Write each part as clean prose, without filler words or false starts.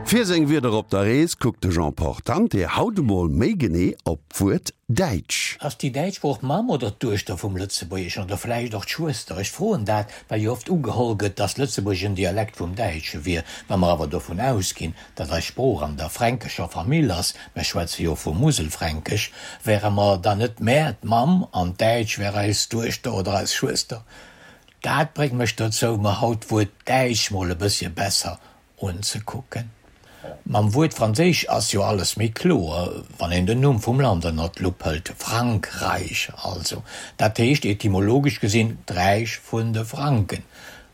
Fir seng Wierder op der Rees kuckt de Jean Portante haut emol méi genee op d'Wuert däitsch. Ass déi däitsch Sprooch d'Mamm oder d'Duechter vum Lëtzebuergeschen oder vläicht och d'Schwëster? Ech froen dat, well jo oft ugeholl gëtt, dass Lëtzebuergesch en Dialekt vum Däitsche wier. Wa mer awer dovun ausginn, datt eis Sprooch an der fränkescher Famill ass, mer schwätze jo vu Muselfränkesch, wäre mer dann net mär d'Mamm an d'Däitsch wär eis Duechter oder eis Schwëster? Dat bréngt mech dozou, mer haut d'Wuert däitsch mol e bëssche besser unzekucken. Mam Wuert franséisch ass jo alles méi kloer, wann een den Numm vum Land ënnert d'Lupp hëlt, Frankräich also. Dat heescht etymologesch gesinn d'Räich vun de Franken.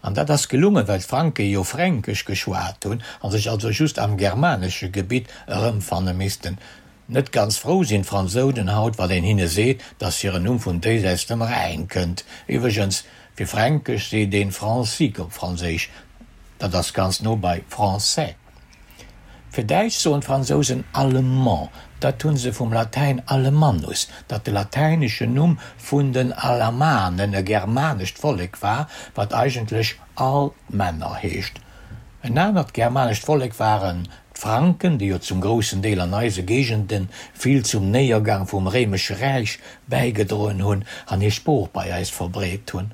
An dat ass gelungen, well d'Franke jo Fränkesch geschwat hunn a sech also just am germanesche Gebitt erëmfanne missten. Net ganz frou sinn d'Fransounen haut, wann een hinne seet, dass hiren Numm vun déisäits dem Rhäin kënnt. Iwwregens, fir Fränkesch seet een francique op Franséisch, dat ass ganz no bei français. Fir Däitsch soen d'Fransousen allemand, dat hu se vum Latäin alemannus, dat de latäineschen Numm vun den Alamanen, e germanescht Vollek war, wat eigentlech al Männer heescht. En anert germanescht Vollek waren d'Franken, déi jo zum groussen Deel an eise Géigende vill zum Néiergang vum Réimesche Räich bäigedroen hunn an hir Sprooch bei eis verbreet hunn.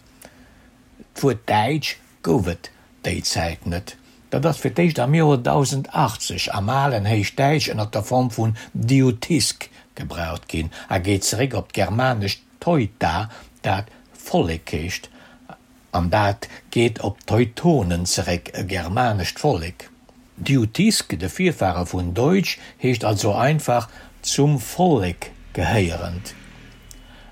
D'Wuert Däitsch gouf et déi Zäit net. Dat ass fir d'éischt am Joer 1080 am alen Héichdäitsch ënner der Form vun Diutisk gebraucht ginn a geet zeréck op d'germanescht Teuta, dat Vollek heescht. An dat geet op d'Teutonen zeréck, e germanescht Vollek. Diutisk, de Virfahre vun Deutsch, heescht also einfach zum Vollek gehéierend.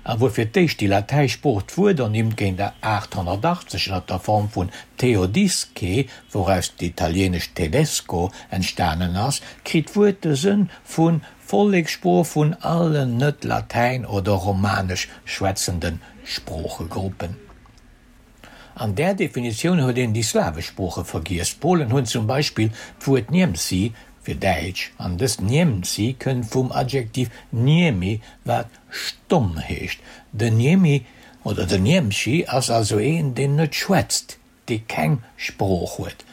A wuer fir d'éischt déi latäisch Sprooch d'Wuert ernimmt géint 880 ënner der Form vun Theodisce, wouraus d'italienescht tedesco entstanen ass, kritt d'Wuert de Sënn vu Vollekssprooch vun allen net latäin oder romanesch schwätzende Sproochegruppen. An där Definitioun huet een déi slawesch Sprooche vergiess. D'Polen hunn zum Beispill d'Wuert Niemcy fir däitsch, an dëst Niemcy kënnt vum Adjektiv niemi, wat stomm heescht. Den Niemi oder den Niemchi ass also een, deen net schwätzt, dee keng Sprooch huet.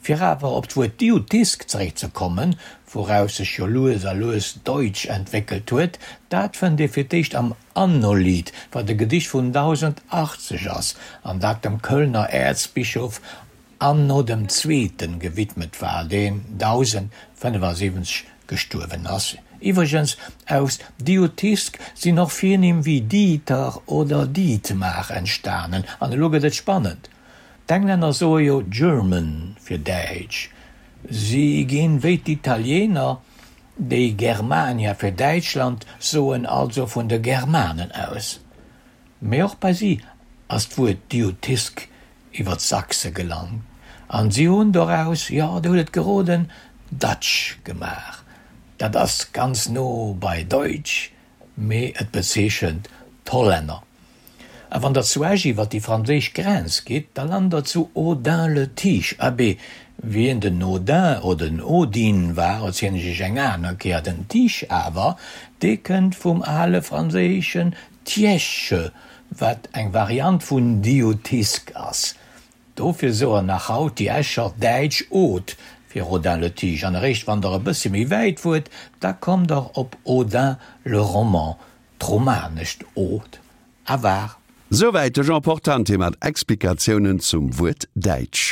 Fir awer op d'Wuert Diutisk zeréckzekommen, wouraus sech jo lues a lues Deutsch entwéckelt huet, dat fënnt ee fir d'éischt am Annolied, wat e Gedicht vun 1080 ass an dat dem Kölner Äerzbischof Anno dem Zweeten gewidmet war, deen 1075 gestuerwen ass. Iwwregens, aus Diutisk sinn och Virnimm wéi Dieter oder Dietmar entstanen. An elo gëtt et spannend! D'Englänner soe jo German fir Däitsch. Si ginn, wéi d'Italiener, déi Germania fir Däitschland soen, also vun de Germanen aus. Mee och bei si ass d'Wuert Diutisk iwwer d'Sachse gelangt an si hunn doraus, jo, der hutt et geroden, Dutch gemaach. Dat ass ganz no bei Deutsch, mee et bezeechent d'Hollänner. A wann der zu Esch iwwer déi franséisch Grenz gitt, da lant der zu Audun-le-Tiche. Abee, wien den Audun oder den Odin war, erzielen ech iech eng aner Kéier. Den Tiche awer, dee kënnt vum ale franséischen Tièche, wat eng Variant vun Diutisc ass. Dofir soen nach haut déi Escher däitsch Od fir Audun-le-Tiche. An eréischt wann der e bëssche méi wäit fuert, da kommt der op Audun-le-Roman, d'romanescht Od a war. Souwäit de Jean Portante mat Explikatiounen zum Wuert däitsch.